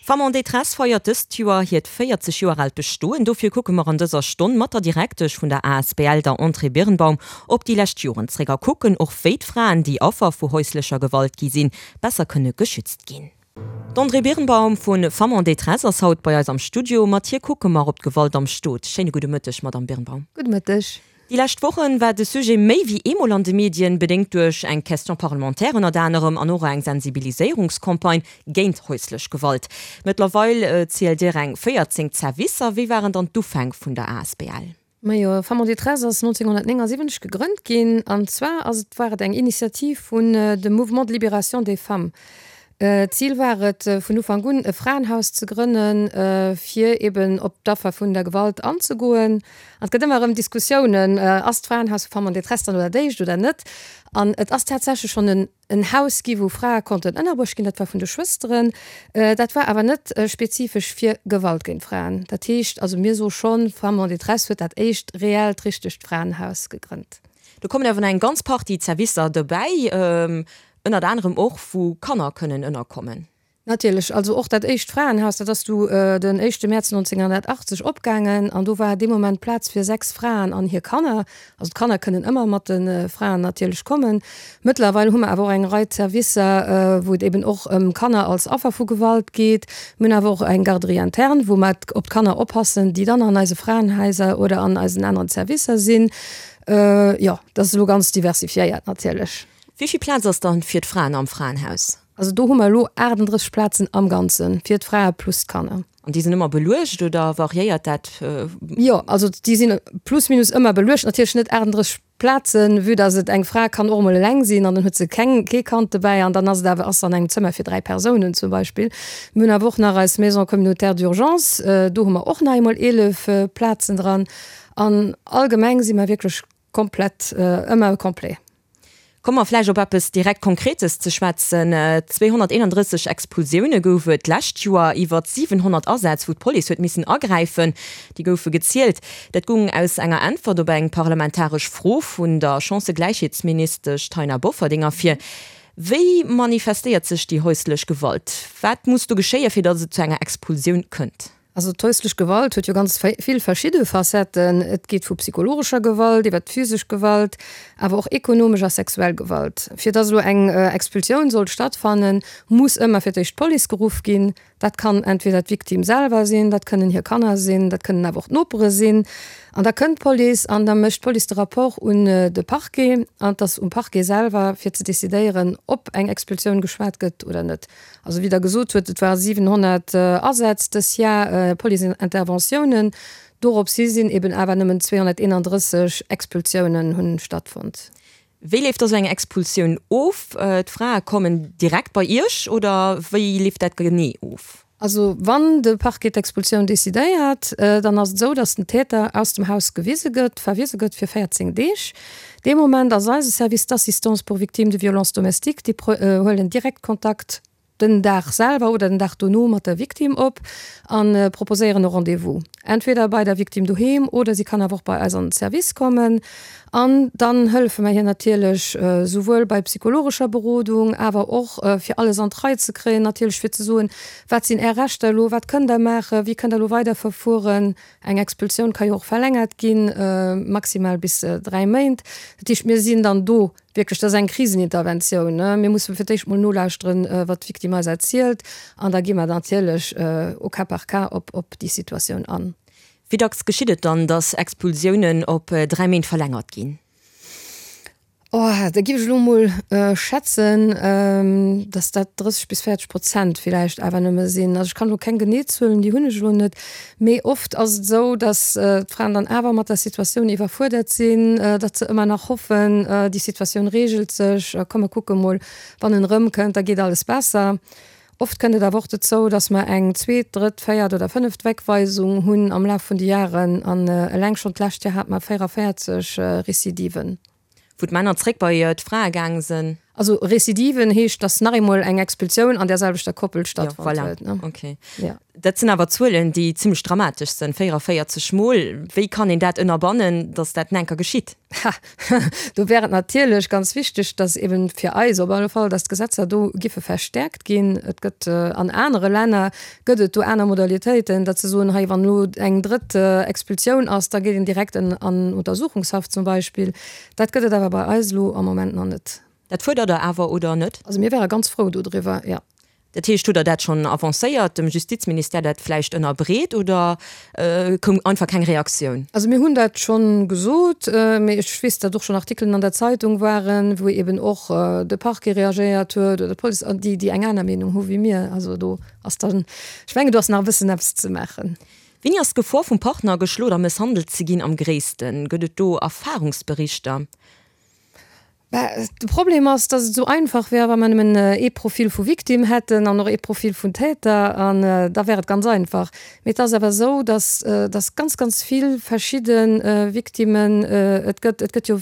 Femmes en détresse feiert dëst Joer hiert 40 Joer aalt Bestoen. Dofir kucke mer an dëser Stonn mat der Direktesch vun der asbl, der Andrée Birnbaum, op déi lescht Joren zréck a kucken och, wéi d'Fraen, déi Affer vu häuslecher Gewalt gi sinn, besser kënne geschützt ginn. D'Andrée Birnbaum vu Femmes en détresse ass haut bei eis am Studio. Mat hir kucke mer op d'Gewalt am Stot. Schéine gudde Mëtteg, Madamm Birnbaum. Gudde Mëtteg. Déi lescht Wochen war de Sujet méi wéi eemol an de Medien, bedéngt duerch eng Question parlementaire ënnert anerem an och eng Sensibiliséierungscampagne géint häuslech Gewalt. Mëttlerweil zielt Dir eng 14 Zerwisser. Wéi waren dann d'Ufäng vun der asbl? Majo, Femmes en détresse ass 1979 gegrënnt ginn an zwar ass et war et eng Initiativ vun dem Mouvement de libération des femmes. D'Zil war et vun Ufank un e Fraenhaus ze grënnen, fir eben op d'Affer vun der Gewalt anzegoen. An et gëtt ëmmer erëm Diskussiounen, ass d'Fraenhaus vu Femmes en détresse dann elo dat éischt oder net? An et ass tatsächlech schonn en Haus gi wou Frae konnten ënnerbruecht ginn, dat war vun de Schwësteren. Dat war awer net spezifesch fir Gewalt géint Fraen. Dat heescht also mir soe schonn, Femmes en détresse huet dat éischt reellt, richtegt Fraenhaus gegrënnt. Do kommen awer nach eng ganz Partie Zerwisser dobäi. Ënnert anerem och, wou Kanner kënnen ënnerkommen. Natierlech. Also och dat éischt Fraenhaus, dat ass du den éischte Mäerz 1980 opgaangen an do war dee Moment Plaz fir 6 Fraen an hir Kanner. Also d'Kanner kënnen ëmmer mat de Fraen natierlech kommen. Mëttlerweil hu mer awer och eng Rei Zerwisser, wou et eben och ëm Kanner als Affer vu Gewalt geet. Mir hunn awer och eng Garderie interne, wou mer op d'Kanner oppassen, déi dann an eise Fraenhaiser oder an eisen aneren Zerwisser sinn. Jo, dat ass elo ganz diversifiéiert natierlech. Wéi vill Plaz ass dann fir d'Fraen am Fraenhaus? Also do hu mer elo 38 Plazen am Ganze fir d'Frae plus d'Kanner. An déi sinn ëmmer beluecht oder variéiert dat? Jo, also déi sinn plus minus ëmmer beluecht. Natierlech net 38 Plazen, vue dass et eng Fra kann och emol eleng sinn an dann huet se keng, kee Kand dobäi an dann ass et awer, ass se an engem Zëmmer fir 3 Persounen zum Beispill. Mir hunn awer och nach eis Maison communautaire d'urgence, do hu mer och nach eemol 11 Plazen dran. An allgemeng si mer wierklech komplett, ëmmer complet. Komme mer vläicht op eppes direkt Konkretes ze schwätzen. 231 Expulsioune gouf et d'lescht Joer, iwwer 700 Asätz, wou d'Police huet missen agräifen, déi goufe gezielt. Dat goung aus enger Äntwert op eng parlamentaresch Fro vun der Chancëgläichheetsministesch Taina Bofferding ervir. Wéi manifestéiert sech déi häuslech Gewalt? Wat muss do geschéien, fir datt et zu enger Expulsioun kënnt? Also d'häuslech Gewalt huet jo ganz vill verschidde Facetten. Et geet vu psychologescher Gewalt iwwer d'physesch Gewalt, awer och ekonomesch a sexuell Gewalt. Fir dass elo eng Expulsioun soll stattfannen, muss ëmmer fir d'éischt d'Police geruff ginn. Dat kann entweder d'Victime selwer sinn, dat kënnen hir Kanner sinn, dat kënnen awer och d'Nopere sinn. An da kënnt d'Police an da mécht d'Police de Rapport un de Parquet. An et ass um Parquet selwer fir ze decidéieren, ob eng Expulsioun geschwat gëtt oder net. Also wéi Der gesot hutt, et ware 700 Asätz dës Jar, Police-Interventiounen. Dorops hi sinn eben awer nëmmen 231 Expulsiounen hunn stattfonnt. Wéi leeft da sou eng Expulsioun of? D'Frae kommen direkt bei Iech oder wéi leeft dat genee of? Also wann de Parquet d'Expulsioun decidéiert, dann ass et esou, datt den Täter aus dem Haus gewise gëtt, verwise gëtt fir 14 Deeg. Dee Moment ass eise Service d'assistance pour victimes de violences domestiques, déi huelen direkt Kontakt den Dag selwer oder den Dag dono mat der Victime op a proposéieren e Rendez-vous, entweder bei der Victime doheem oder si kann awer och bei eis an den Service kommen. An dann hëllefe mer hir natierlech souwuel bei psychologescher Berodung, awer och fir alles an d'Rei ze kréien, natierlech fir ze soen, wat sinn Är Rechter elo, wat kënnt Der maachen, wéi kënnt Der elo weiderverfueren. Eng Expulsioun ka jo och verlängert ginn, maximal bis 3 Méint. Dat heescht, mir sinn dann do wierklech, dat ass eng Kriseninterventioun. Mir musse fir d'éischt mol nolauschteren, wat d'Victime eis erzielt, an da gi mer natierlech au cas par cas op déi Situatioun an. Wéi dacks geschitt et dann, datt Expulsiounen op 3 Méint verlängert ginn? Oh, da giff ech elo mol schätzen, dass dat 30 bis 40 Prozent villäicht awer nëmme sinn. Also ech kann elo keng genee Zuelen, déi hunn ech elo net. Mee oft ass et esou, dass d'Fraen dann awer mat der Situatioun iwwerfuerdert sinn, datt se ëmmer nach hoffen, déi Situatioun reegelt sech, komm mer kucke mol, wann en erëmkënnt, da geet alles besser. Oft kënnt et awer och dozou, dass mer eng zweet, drëtt, véiert oder fënneft Wegweisung hunn am Laf vun de Jaren. An eleng schonn d'lescht Joer hate mer 44 Recidiven. Wou d'Männer zréck bei d'Frae gaang sënn. Also Recidiven heescht, dass nach eemol eng Expulsioun an där selwechter Koppel stattfonnt huet. Jo, voilà. Okay. Dat sinn awer Zuelen, déi zimmlech dramatesch sënn, 44 Mol. Wéi kann een dat ënnerbannen, datt dat nenker geschitt? Ha, do wär et natierlech ganz wichteg, datt eben fir eis op alle Fall, datt d'Gesetzer do giffe verstärkt ginn. Et gëtt an anere Länner gëtt et do aner Modalitéiten, datt se soen, hei wann elo eng drëtt Expulsioun ass, da geet een direkt an Untersuchungshaft zum Beispill. Dat gëtt et awer bei eis elo am Moment nach net. Dat fuerdert Der awer, oder net? Also mir wäre ganz frou dodriwwer, jo. Dat heescht, hutt Der dat schonn avancéiert, dem Justizministère dat vläicht ënnerbreet oder koum einfach keng Reaktioun? Also mir hunn dat schonn gesot, mee ech weess, datt och schonn Artikelen an der Zeitung waren, wou eeben och de Parquet reagéiert huet oder d'Police, an déi, déi eng aner Meenung hu wéi mir. Also do ass dann, ech mengen, do ass nach e bëssen eppes ze maachen. Wéini ass d'Gefor vum Partner geschloen a mësshandelt ze ginn am gréissten? Gëtt et do Erfarungsberichter? Bah, de Problem ass, dass et esou einfach wär, wa mer nëmmen ee Profil vu Victime hätten an och ee Profil vun Täter, an da wär et ganz einfach. Mee et ass awer esou, dass, dass ganz, ganz vill verschidde Victimen et gëtt. Et gëtt jo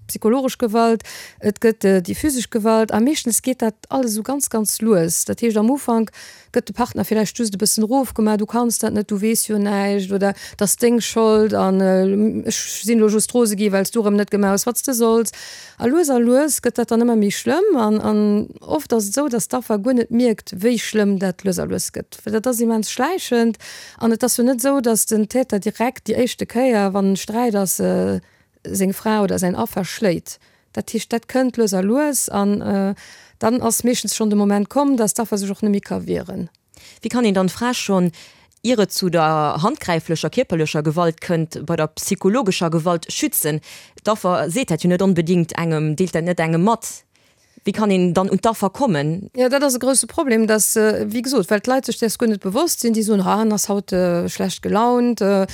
psychologesch Gewalt, et gëtt déi physesch Gewalt a meeschtens geet dat alles esou ganz, ganz lues. Dat heescht, am Ufank Gëtt de Partner villäicht just e bëssen erofgemaach, du kanns dat net, du weess jo näischt oder et ass deng Schold an ech sinn elo just rose gi well s du erëm net gemaach hues wat s de solls. A lues a lues gëtt dat dann ëmmer méi schlëmm an an oft ass et esou, datt d'Affer guer net mierkt wéi schlëmm dat lues a lues gëtt, well dat ass immens schläichend an et ass jo net esou, datt den Täter direkt déi éischte Kéier wann Sträit ass seng Fra oder säin Affer schléit. Dat heescht, dat kënnt lues a lues an dann ass meeschtens schonn de Moment komm, dass d'Affer sech och net méi ka wieren. Wéi kann een dann d'Fra schonn, ier et zu der handgräiflecher kierperlecher Gewalt kënnt, bei der psychologescher Gewalt schützen? D'Affer seet dat jo net onbedéngt engem, deelt dat net engem mat. Wéi kann een dann un d'Affer kommen? Jo, dat ass e grousse Problem, dass, wéi gesot, well d'Leit sech däers guer net bewosst sinn. Déi soen, ha, en ass haut schlecht gelaunt oder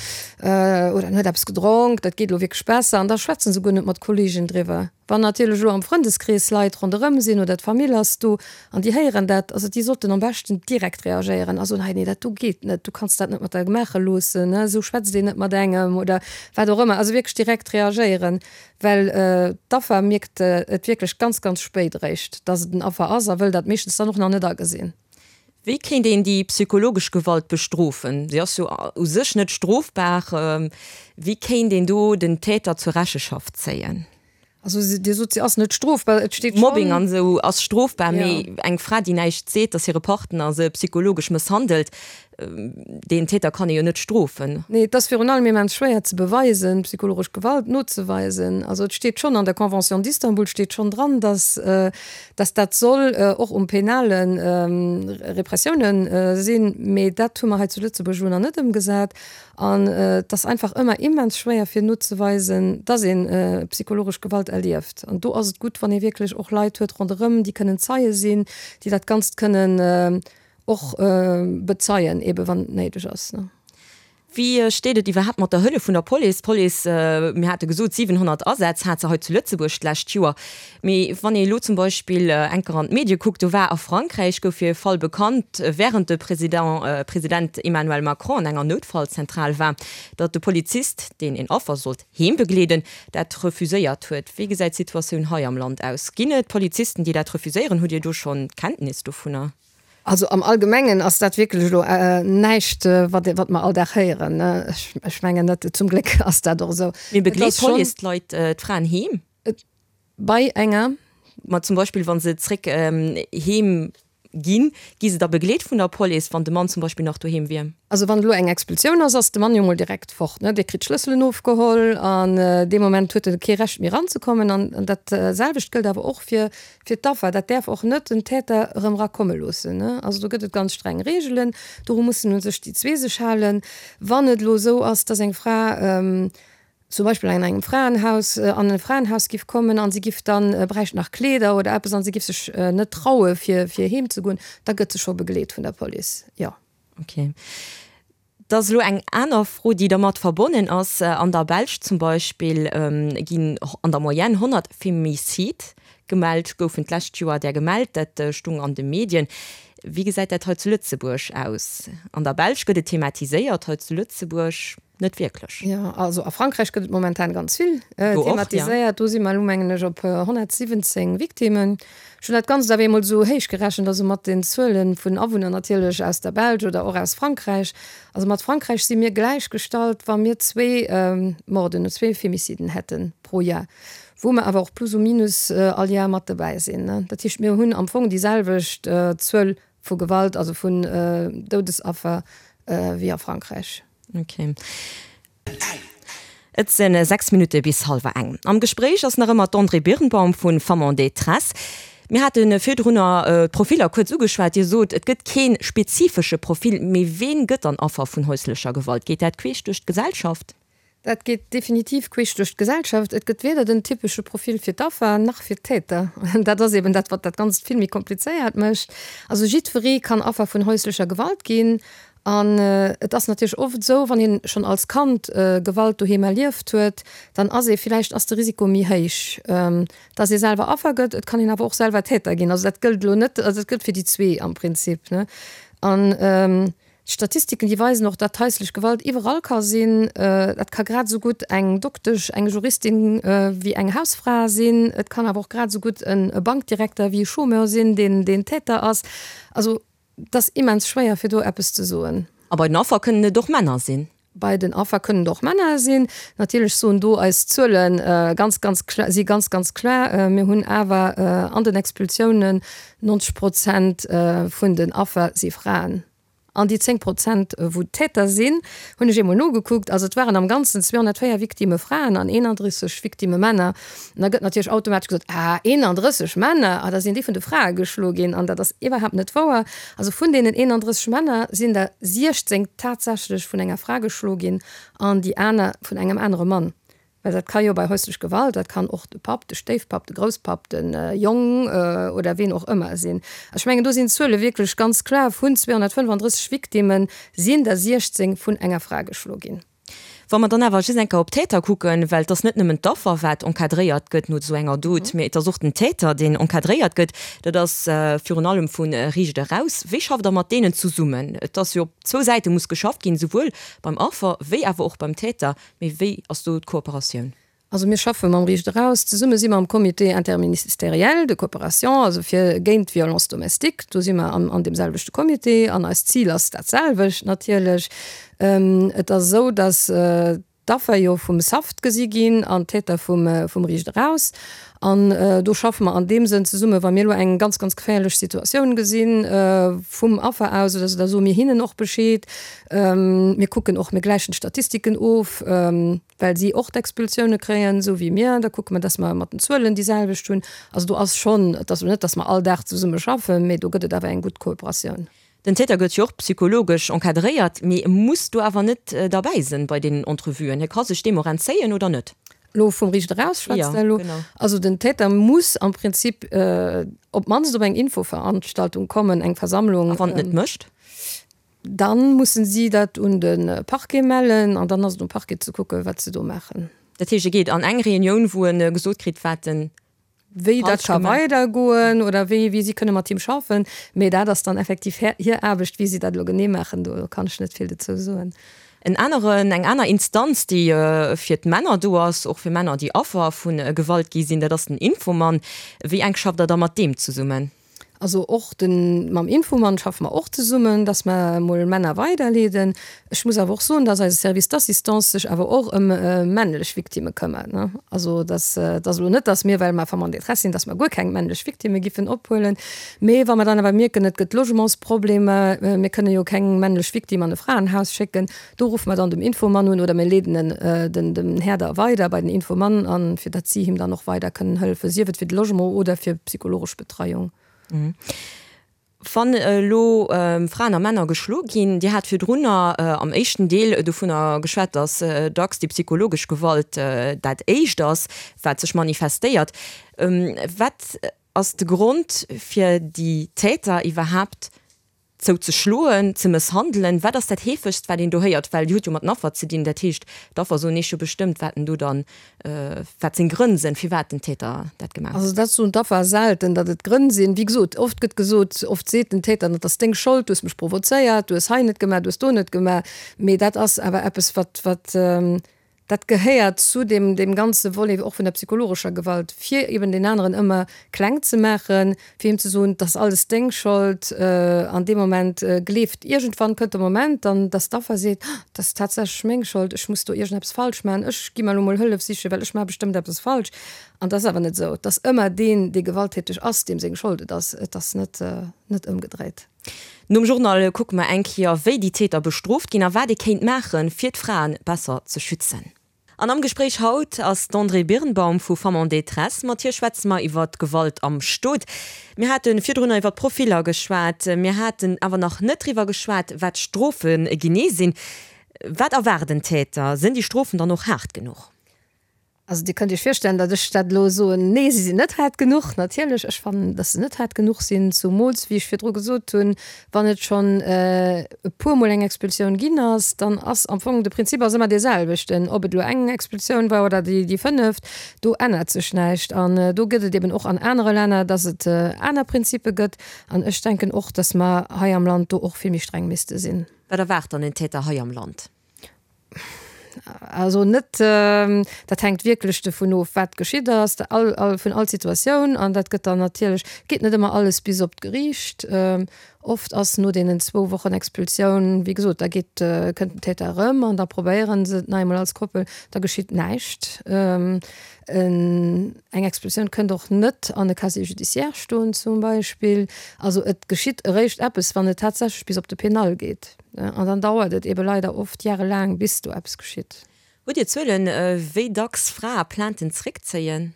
en huet eppes gedronk, dat geet elo wierklech besser. An da schwätze se guer net mat Kolleegen driwwer. Wann natierlech elo am Frëndeskrees Leit ronderëm sinn oder d'Famill ass do an déi héieren dat, also déi sollten am beschten direkt reagéieren a soen, hei, nee, dat do geet net, du kanns dat net mat der maache loossen, esou schwätzt een net mat engem oder wat och ëmmer. Also wierklech direkt reagéieren. Well d'Affer mierkt et wierklech ganz, ganz spéit eréischt, dass et en Affer ass a wëll dat meeschtens dann och nach net agesinn. Wéi kéint een déi psychologesch Gewalt bestrofen? Si ass jo u sech net strofbar. Wéi kéint een do den Täter zur Recheschaft zéien? Also Dir sot, se ass net strofbar. Et steet schonn. Mobbing an esou ass strofbar, mee eng Fra, déi näischt seet, dass hire Partner se psychologesch mësshandelt, Deen Täter kann ee jo net strofen. Nee, et ass virun allem immens schwéier ze beweisen, psychologesch Gewalt nozeweisen. Also et steet schonn an der Convention d'Istanbul steet schonn dran, dass, dass dat soll och um penale Repressioune sinn, mee dat hu mer hei zu Lëtzebuerg elo nach net ëmgesat. An et ass einfach ëmmer immens schwéier fir nozeweisen, dass ee psychologesch Gewalt erlieft. An do ass et gutt, wann ee wierklech och Leit huet ronderëm, déi kënnen Zeie sinn, déi dat Ganzt kënnen Och bezeien, ebe wann et néideg ass. Wéi steet et iwwerhaapt mat der Hëllef vun der Police? D'Police, mir hate gesot, 700 Asätz hat se hei zu Lëtzebuerg d'lescht Joer. Mee wann ee elo zum Beispill enker an d'Medie kuckt, do war a Frankräich, gouf jo e Fall bekannt, wärend de President Emmanuel Macron an enger Noutfallzentral war, datt de Polizist, deen een Affer sollt heem begleeden, dat refuséiert huet. Wéi gesäit d'Situatioun hei am Land aus? Ginn et Polizisten, déi dat refuséieren? Hutt Dir do schonn Kenntnis dovunner? Also am Allgemengen ass dat wierklech elo näischt, wat wat mer all Dag héieren. Ech mengen net, zum Gléck ass dat och esou. Mee begleet d'Police d'Leit, d'Fraen heem? Bei enger. Ma zum Beispill wa se zréck heem ginn, gi se da begleet vun der Police, wann de Mann zum Beispill nach doheem wier? Also wann elo eng Expulsioun ass, ass de Mann jo mol direkt fort, ne? Dee kritt d'Schlësselen ofgeholl an dee Moment huet e kee Recht méi eranzekommen. An dat selwecht gëllt awer och fir fir d'Affer. Dat däerf och net den Täter erëm erakomme loossen, ne? Also do gëtt et ganz streng Reegelen, doru mussen u sech déi zwee sech halen. Wann et elo esou ass, dass eng Fra zum Beispill an engem Fraenhaus, an e Fraenhaus giff kommen an si giff dann, bräicht nach Kleeder oder eppes an si giff sech net traue fir fir heem ze goen, da gëtt se scho begleet vun der Police, jo. Ok. Et ass elo eng aner Fro, déi dermat verbonnen ass. An der Belsch zum Beispill ginn an der Moyenne 100 Femicide gemellt, goufen d'lescht Joer där gemellt, dat stung an de Medien. Wéi gesäit dat hei zu Lëtzebuerg aus? An der Belsch gëtt et thematiséiert, hei zu Lëtzebuerg? Net wierklech. Jo, also a Frankräich gëtt et momentan ganz vill thematiséiert. Do si mer elo, mengen ech, op 117 Victimmen. Ech hunn dat Ganzt awer eemol esou héich gerechent, also mat den Zuele vun Awunner natierlech aus der Belsch oder och aus Frankräich. Also mat Frankräich si mir gläichgestallt, wa mir zwee Morden, zwee Femiciden hätte pro Jar, wou mer awer och plus ou minus all Jar mat dobäi sinn. Dat heescht, mir hunn am Fong déi selwecht Zuel vu Gewalt, also vun Doudesaffer wéi a Frankräich. Ok. Et sinn 6 Minutte bis hallwer eng. Am Gespréich ass nach ëmmer d'Andrée Birnbaum vu Femmes en détresse. Mir hate virdrunner d'Profiller kuerz ugeschwat. Dir sot, et gëtt kee spezifesche Profil. Mee ween gëtt dann Affer vun häuslecher Gewalt? Geet dat queesch duerch d'Gesellschaft? Dat geet definitiv queesch duerch d'Gesellschaft. Et gëtt weder den typesche Profil fir d'Affer nach fir d'Täter. Dat ass eben dat, wat dat Ganzt vill méi komplizéiert mécht. Also jiddweree kann Affer vun häuslecher Gewalt ginn. An et ass natierlech oft esou, wann een schonn als Kand Gewalt doheem erlieft huet, dann ass ee villäicht, ass de Risiko méi héich, dass ee selwer Affer gëtt. Et kann een awer och selwer Täter ginn. Also dat gëllt elo net, also dat gëllt fir déi zwee am Prinzip, ne. An d'Statistiken, déi weisen och, datt haislech Gewalt iwwerall ka sinn. Dat ka grad esou gutt eng Doktesch, eng Juristin wéi eng Hausfra sinn. Et kann awer och grad esou gutt e Bankdirekter wéi e Chômeur sinn, deen deen Täter ass. Also Et ass immens schwéier fir do eppes ze soen. A bei den Affer kënnen et och Männer sinn? Bei den Affer kënnen et och Männer sinn. Natierlech soen do eis Zuele ganz, ganz klar, si ganz, ganz klar. Mir hunn awer an den Expulsiounen 90 Prozent vun den Affer si Fraen. An déi 10 Prozent wou d'Täter sinn, hunn ech eemol nogekuckt, also et waren am Ganzen 204 Victimme Fraen an 31 Victimme Männer. An da gëtt natierlech automatesch gesot, Ah, 31 Männer, ah, da sinn déi vun de Frae geschloe ginn. An dat ass iwwerhaapt net wouer. Also vun deenen 31 Männer sinn der 16 tatsächlech vun enger Fra geschloe ginn an déi aner vun engem anere Mann. Well dat ka jo bei häuslech Gewalt, dat kann och de Papp, de Stéifpapp, de Grousspapp, de Jong oder ween och ëmmer sinn. Also ech mengen, do sinn d'Zuele wierklech ganz kloer, Vun 235 Victimme sinn der 16 vun enger Fra geschloe ginn. Wa mer dann awer just eng Kéier op d'Täter kucken, well et ass net nëmmen d'Affer, wat encadréiert gëtt no esou enger Dot, mee et ass och den Täter, deen encadréiert gëtt. Dat ass virun allem vu Riicht eraus. Wéi schafft Der mat deenen zesummen? Et ass jo op zwou Säite muss geschafft ginn, souwuel beim Affer wéi awer och beim Täter. Mee wéi ass do d'Kooperatioun? Also mir schaffe mam Riicht Eraus zesumme, si mer am Comité interministériel de coopération, also fir géint d'Violence domestique, do si mer an deem selwechte Comité an eist Zil ass dat selwecht natierlech. Et ass esou, datt d'Affer jo vum SAFT gesi ginn an d'Täter vum Riicht Eraus. An do schaffe mer an deem Sënn zesumme, wa mir elo eng ganz, ganz geféierlech Situatioun gesi vum Affer aus oder esou, da soe mir hinnen och Bescheed. Mir kucken och, mir gläichen d'Statistiken of. Well si och d'Expulsioune kréien, esou wéi mir. Da kucke mer, dass mer mat den Zuelen déi selwecht hunn. Also do ass schonn, et ass elo net, dass mer all Dag zesumme schaffen, mee do gëtt et awer eng gutt Kooperatioun. Den Täter gëtt jo och psychologesch encadréiert, mee e muss do awer net derbäi sinn bei deenen Entrevuen. Hie ka sech deem och entzéien, oder net? Elo vum Riicht eraus schwätzt Der elo? Also den Täter muss am Prinzip op d'mannst op eng Infoveranstaltung kommen, eng Versammlung. A wann en et net mécht? Dann mussen si dat un de Parquet mellen an dann ass et um Parquet ze kucken, wat se do maachen. Dat heescht, e geet an eng Reunioun, wou e gesot kritt, wat en Wéi dat falsch ka gemaach. weidergoen oder wéi, wéi si kënne mat him schaffen. Mee dat ass dann effektiv hir, hir Aarbecht. Wéi si dat elo genee maachen, do kann ech net vill dozou soen. En aneren, eng aner Instanz, déi fir d'Männer do ass, och fir Männer, déi Affer vu Gewalt gi sinn, dat ass den Infomann. Wéi enk schafft Der da mat deem zesummen? Also och de mam Infomann schaffe mer och zesummen, dass mer emol Männer weiderleeden. Ech muss awer och soen, dass eise Service d'assistance sech awer och ëm männlech Victimme këmmert, ne. Also dass et ass elo net, dass mir, well mer Femmes en détresse sinn, dass mer guer keng männlech Victimme giffen ophuelen. Mee wa mer dann awer mierken, et gëtt Logementsproblemer, mir kënne jo keng männlech Victime an e Fraenhaus schécken, do ruffe mer dann dem Infomann un oder mir leeden en den dem Här da weider bei den Infomann an, fir datt si him dann och weider kënnen hëllefen, sief et fir de Logement oder fir psychologesch Betreiung. Wann elo Fraen a Männer geschlo ginn, Dir hat virdrunner am éischten Deel dovunner geschwat, datt dacks déi psychologesch Gewalt dat éischt ass, wat sech manifestéiert. Wat ass de Grond fir déi Täter iwwerhaapt? Zou ze schloen, ze mësshandelen. Wat ass dat heefegst, wat een do héiert? Well Dir hutt jo mat den Affer ze dinn. Dat heescht, d'Affer soen Iech jo bestëmmt, wat en do dann, wat seng Grënn sinn, firwat den Täter dat gemaach huet. Also dat soen d'Affer selten, datt et Grënn sinn. Wéi gesot, oft gëtt gesot, oft seet den Täter, dat ass deng Schold, du hues mech provozéiert, du hues hei net gemaach, du hues do net gemaach. Mee dat ass awer eppes, wat, wat, Dat gehéiert zu deem, deem ganze Volet och vun der psychologescher Gewalt, fir eben deen aneren ëmmer kleng ze maachen, fir him ze soen, 't ass alles deng Schold. An deem Moment gleeft, iergendwann kënnt de Moment dann, dass d'Affer seet, Oh, 't ass tatsächlech meng Schold, ech muss do iergendeppes falsch maachen, ech gi mer elo mol Hëllef sichen, well ech maache bestëmmt eppes falsch. An 't ass awer net esou. 't ass ëmmer deen, dee gewalttäteg ass, deem seng Schold et ass. Et ass net, net ëmgedréit. Nom Journal kucke mer eng Kéier, wéi déi Täter bestrooft ginn a wat ee kéint maachen, fir d'Frae besser ze schützen. An am Gespréich haut ass d'Andrée Birnbaum vu Femmes en détresse. Mat hir schwätze mer iwwer d'Gewalt am Stot. Mir hate virdrunner iwwer d'Profiller geschwat. Mir haten awer nach net driwwer geschwat, wat d'Strofe genee sinn. Wat erwaart en Täter? Sinn déi Strofen dann och haart genuch? Also Dir kënnt Iech virstellen, datt ech dat elo soen, Nee, se sinn net haart genuch. Natierlech, ech fannen, datt se net haart genuch sinn, zumools, wéi ech virdru gesot hunn, wann et schonn e puermol eng Expulsioun ginn ass, dann ass am Fong de Prinzip ass ëmmer dee selwechten, ob et elo eng Expulsioun war oder déi fënneft, do ännert sech näischt. An do gëtt et eben och an anere Länner, datt et aner Prinzipe gëtt. An ech denken och, datt mer hei am Land do och vill méi streng misste sinn. Wat erwaart dann en Täter hei am Land? Also net, dat hänkt wierklech dovun of, wat geschitt ass, all, all, vun all Situatioun. An dat gëtt dann natierlech, geet net ëmmer alles bis op d'Geriicht. Oft ass no deenen zwou Wochen Expulsioun, wéi gesot, da geet, kënnt den Täter erëm an da probéiere se et nach eemol als Koppel, da geschitt näischt. Eng Expulsioun kënnt och net an e Casier judiciaire stoen zum Beispill. Also et geschitt eréischt eppes, wann et tatsächlech bis op de Penal geet. An dann dauert et ebe leider oft jarelaang, bis do eppes geschitt. Hutt Dir Zuelen, wéi dacks Frae Plainten zréckzéien?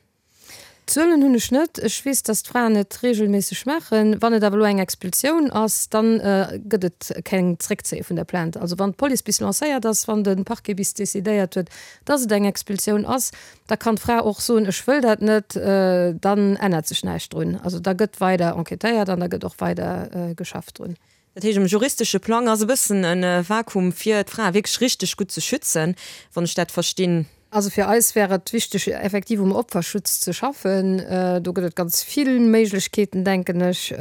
Zuelen hunn ech net. Ech weess, datt d'Fraen et reegelméisseg maachen. Wann et awer elo eng Expulsioun ass, da gëtt et keng Zréckzéie vun der Plainte. Also wann d'Police bis lancéiert ass, wann de Parquet bis decidéiert huet, datt et eng Expulsioun ass, da kann d'Fra och soen, ech wëll dat net, dann ännert sech näischt drun. Also da gëtt weider enquêtéiert an da gëtt och weider geschafft drun. Dat heescht, um juristesche Plang ass e bëssen e Vakuum, fir d'Frae wierklech richteg gutt ze schützen, wann ech dat verstinn. Also fir eis wär et wichteg, effektiv um Opferschutz ze schaffen. Do gëtt et ganz vill Méiglechkeeten, denken ech,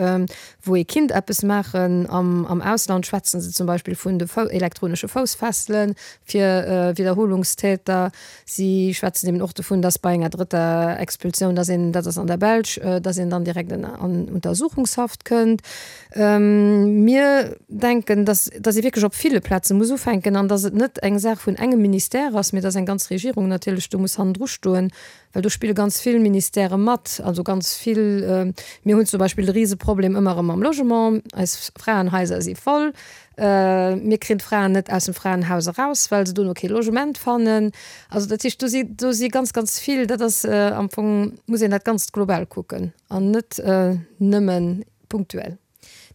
wou ee kinnt eppes maachen. Am Ausland schwätze se zum Beispill vun de elektronesche Foussfessele fir Widderholungstäter. Si schwätzen eben och dovun, dass bei enger drëtter Expulsioun, dass een, dat ass an der Belsch, dass een dann direkt an Untersuchungshaft kënnt. Mir denken, dass dass ee wierklech op ville Plaze muss ufänken an dass et net eng Saach vun engem Ministère ass, mee dass eng ganz Regierung natierlech do muss hannendru stoen, well do spille ganz vill Ministèrë mat, also ganz vill. Mir hunn zum Beispill de Riseproblem ëmmer erëm mam Logement. Eis Fraenhaiser si voll. Mir kréien d'Fraen net aus dem Fraenhaus eraus, well se dono kee Logement fannen. Also dat heescht, do si do si ganz, ganz vill, dat ass am Fong muss een dat Ganzt global kucken an net nëmmen punktuell.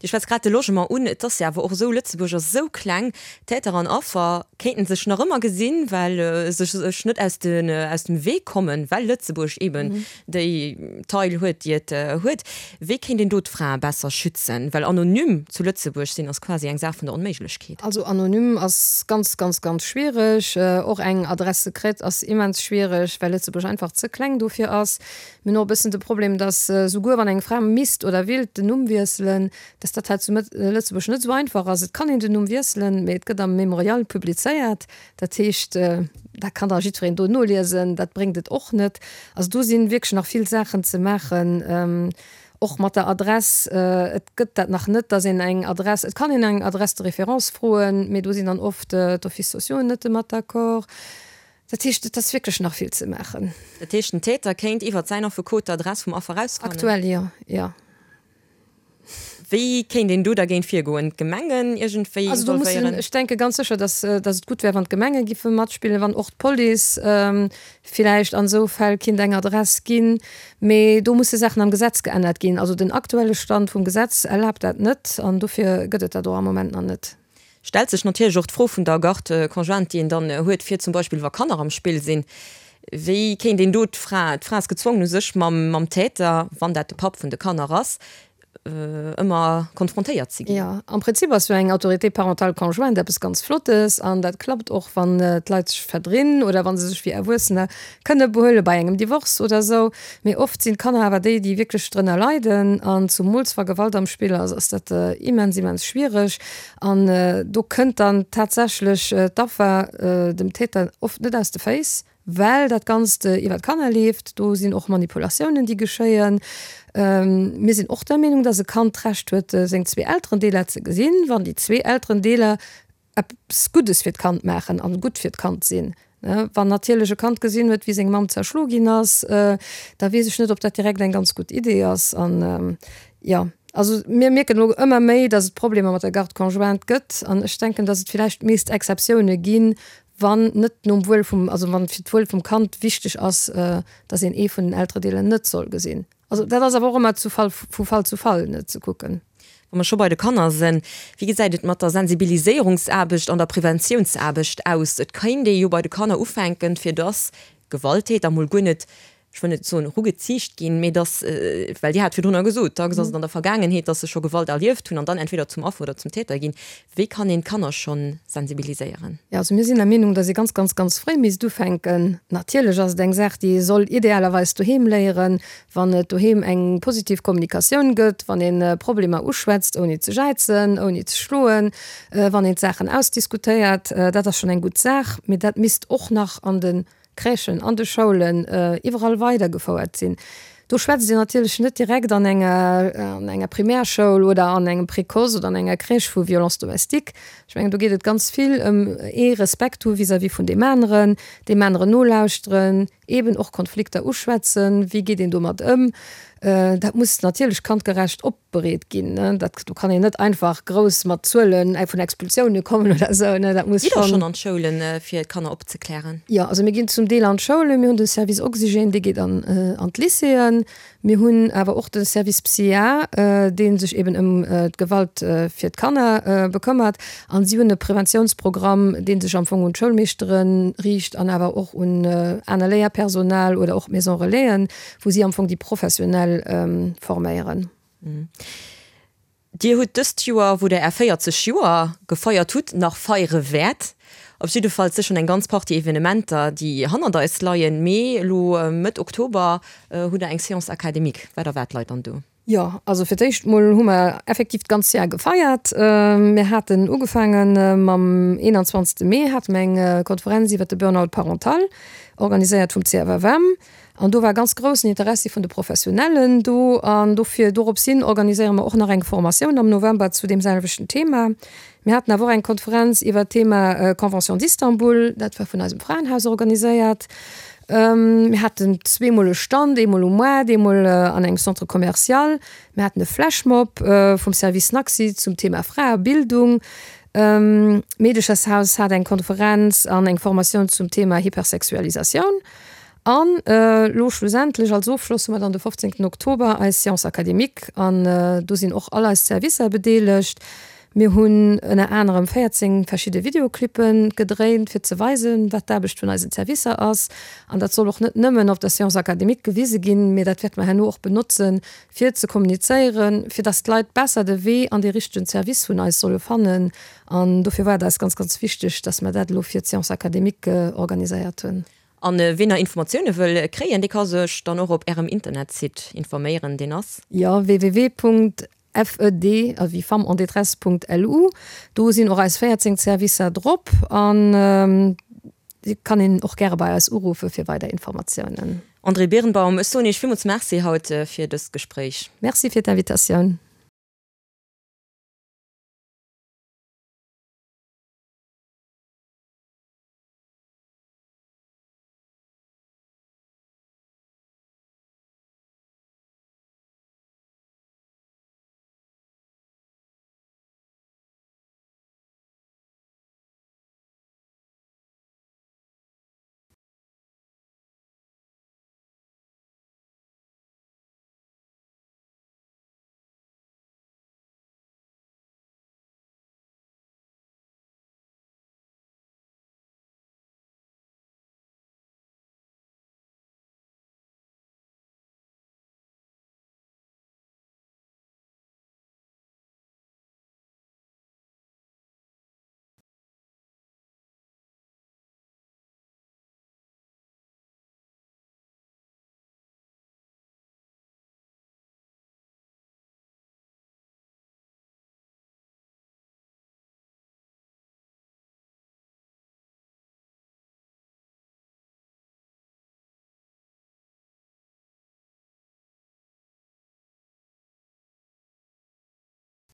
Dir schwätzt grad de Logement un. Et ass jo awer och esou, Lëtzebuerg ass esou kleng, Täter an Affer kéinten sech nach ëmmer gesinn, well se sech net aus dem Wee kommen, well Lëtzebuerg eben déi Taille huet, déi et huet. Wéi kéint een do d'Frae besser schützen? Well anonym zu Lëtzebuerg sinn ass quasi eng Saach vun der Onméiglechkeet. Also anonym ass ganz, ganz, ganz schwiereg. Och eng Adresse secrète ass immens schwiereg, well Lëtzebuerg einfach ze kleng dofir ass. Mir hunn och e bëssen de Problem, dass souguer wann eng Fra misst oder willt den Numm wiesselen, dass dat hei zu Lëtzebuerg net esou einfach ass. Et kann een den Numm wiesselen, mee et gëtt am Mémorial publizéiert. Dat heescht, dat kann da jiddwereen do noliesen. Dat bréngt et och net. Also do si wierklech nach vill Saachen ze maachen, och mat der Adress. Et gëtt dat nach net, dass een eng Adress, et kann een eng Adresse de référence froen, mee do sinn dann oft d'Offices sociaux net domat d'accord. Dat heescht, et ass wierklech nach vill ze maachen. Dat heescht, den Täter kéint iwwert säin Affekot d'Adress vum Affer erausfannen? Aktuell jo, jo. Wéi kéint een do dergéint virgoen? D'Gemengen iergendwéi Also do mussen, involvéieren? ech denke ganz sécher, dass, dass et gutt wär, wann d'Gemenge giffe matspillen, wann och d'Police villäicht an esou Fäll kinnt eng Adress ginn. Mee do musse Saachen am Gesetz geännert ginn. Also den aktuelle Stand vum Gesetz erlaabt dat net an dofir gëtt et dat och am Moment nach net. Stellt sech natierlech och d'Fro vun der Garde conjointe, déi een dann huet, fir zum Beispill wa Kanner am Spill sinn, wéi kéint een do d'Fra, d'Fra ass gezwongen u sech mam, mam Täter, wann dat de Papp vun de Kanner ass, Ëmmer konfrontéiert ze ginn. Jo, am Prinzip ass jo eng Autorité parentale conjointe eppes ganz Flottes an dat klappt och, wann d'Leit sech verdrinn oder wa se sech wéi Erwuessener kënne behuele bei engem Divorce oder esou. Mee oft sinn d'Kanner awer déi, déi wierklech drënner leiden an zumools wa Gewalt am Spill ass, ass dat immens, immens schwiereg. An do kënnt dann tatsächlech d'Affer dem Täter oft net aus de Féiss. Well dat Ganzt iwwer d'Kanner leeft. Do sinn och Manipulatiounen, déi geschéien. Mir sinn och der Meenung, dass e Kand d'Recht huet, seng zwee Elterendeeler ze gesinn, wann déi zwee Elterendeeler eppes Guddes fir d'Kand maachen an gutt fir d'Kand sinn. Wann natierlech e Kand gesinn huet, wéi seng Mamm zerschlo ginn ass, da weess ech net, ob dat direkt eng ganz gutt Idee ass. An, jo, also mir mierken elo ëmmer méi, dass et Problemer mat der Garde conjointe gëtt. An ech denken, dass et villäicht meescht Exceptioune ginn, wann net nom Wuel vum, also wann fir d'Wuel vum Kand wichteg ass, dass een ee vun den Elteredeeler net soll gesinn. Also dat ass awer och ëmmer zu Fall, vu Fall zu Fall ne ze kucken. Wa mer scho bei de Kanner sinn, wéi gesäit et mat der Sensibiliséierungsaarbecht an der Preventiounsaarbecht aus? Et kéint ee jo bei de Kanner ufänken, fir dass Gewalttäter mol guer net ech wëll net soen erugeziicht ginn, mee dass, well Dir hat virdrunner gesot, dacks ass et an der Vergaangenheet, dass se scho Gewalt erlieft hunn an dann entweder zum Affer oder zum Täter ginn. Wéi kann een d'Kanner scho sensibiliséieren? Jo, also mir sinn der Meenung, dass ee ganz, ganz, ganz fréi misst ufänken. Natierlech ass et eng Saach, déi ee soll idealerweis doheem léieren, wann et doheem eng positiv Kommunikatioun gëtt, wann ee Problemer uschwätzt, ouni ze jäizen, ouni ze schloen, wann een d'Saachen ausdiskutéiert. Dat ass schonn eng gutt Saach, mee dat misst och nach an de Crèchen, an de Schoulen, iwwerall weidergefouert sinn. Do schwätzt een natierlech net direkt an enger, an enger Primärschoul oder an engem Précoce oder an enger Crèche vu Violence domestique. Ech mengen, do geet et ganz vill ëm ee Respekt hu vis-à-vis vun deem aneren, deem aneren nolauschteren, eeben och Konflikter uschwätzen, wéi geet een domat ëm. Dat muss natierlech kandgerecht op. bereet ginn. Dat, do kann een net einfach grouss mat Zuelen vun Expulsioune kommen oder esou, ne, dat muss Gitt Der schonn. schonn an d'Schoulen, fir d'Kanner opzeklären? Jo, also mir ginn zum Deel an d'Schoulen. Mir hunn de Service Oxygène, dee geet an an d'Lycéeën. Mir hunn awer och de Service PsyA, dee sech eben ëm d'Gewalt fir d'Kanner bekëmmert. An si hunn e Preventiounsprogramm, dee sech am Fong un d'Schoulmeeschtere riicht an awer och un aner Léierpersonal oder och d'Maison Relaisen. wou si am Fong déi Professionell forméieren. Dir hutt dëst Joer, wou Der Är 40 Joer gefeiert hutt, nach feiere wäert, op jiddefalls sécher eng ganz Partie Evenementer, déi hannert eis leien, mee elo Mëtt Oktober hutt Der eng Séance académique. Wat erwaart d'Leit dann do? Jo, also fir d'éischt mol hu mer effektiv d'ganz Jar gefeiert. Mir haten ugefaange mam 21. Mee hate mer eng Konferenz iwwert de Burnout parental, organiséiert vum CFFM. An do war ganz groussen Interessi vun de Professionellen do. An dofir, dorops hin organiséiere mer och nach eng Formatioun am November zu deem selwechten Thema. Mir haten awer och eng Konferenz iwwert d'Thema Convention d'Istanbul, dat war vun eisem Fraenhaus organiséiert. Mir haten zweemol e Stand, eemol um Moart, eemol an engem Centre commercial. Mir haten e Flashmob vum Service Naxi zum Thema Fraebildung. D'Meedechershaus hat eng Konferenz an eng Formatioun zum Thema Hypersexualisatioun. An elo schlussendlech als Ofschloss hu mer dann de 15 Oktober eis Séance académique an do sinn och all eis Servicer bedeelegt. Mir hunn ënner anerem 14 verschidde Videoclippe gedréint, fir ze weisen, wat d'Aarbecht vun eisen Servicer ass. An dat soll och net nëmmen op der Séance académique gewise ginn, mee dat wäerte mer herno och benotzen, fir ze kommunizéieren, fir dass d'Leit besser de Wee an dee richtegen Service vun eis solle fannen. An dofir war et eis ganz, ganz wichteg, dass mer dat elo fir d'Séance académique organiséiert hunn. An ween nach Informatioune wëll kréien, dee ka sech dann och op Ärem Internetsite informéieren, deen ass. Jo, www. FED, also wéi Femmes en détresse Punkt LU. Do sinn och eis 14 Servicer drop an et kann een och gäre bei eis uruffe fir weider Informatiounen. Andrée Birnbaum, ech soen Iech villmools Merci haut fir dëst Gespréich. Merci fir d'Invitatioun.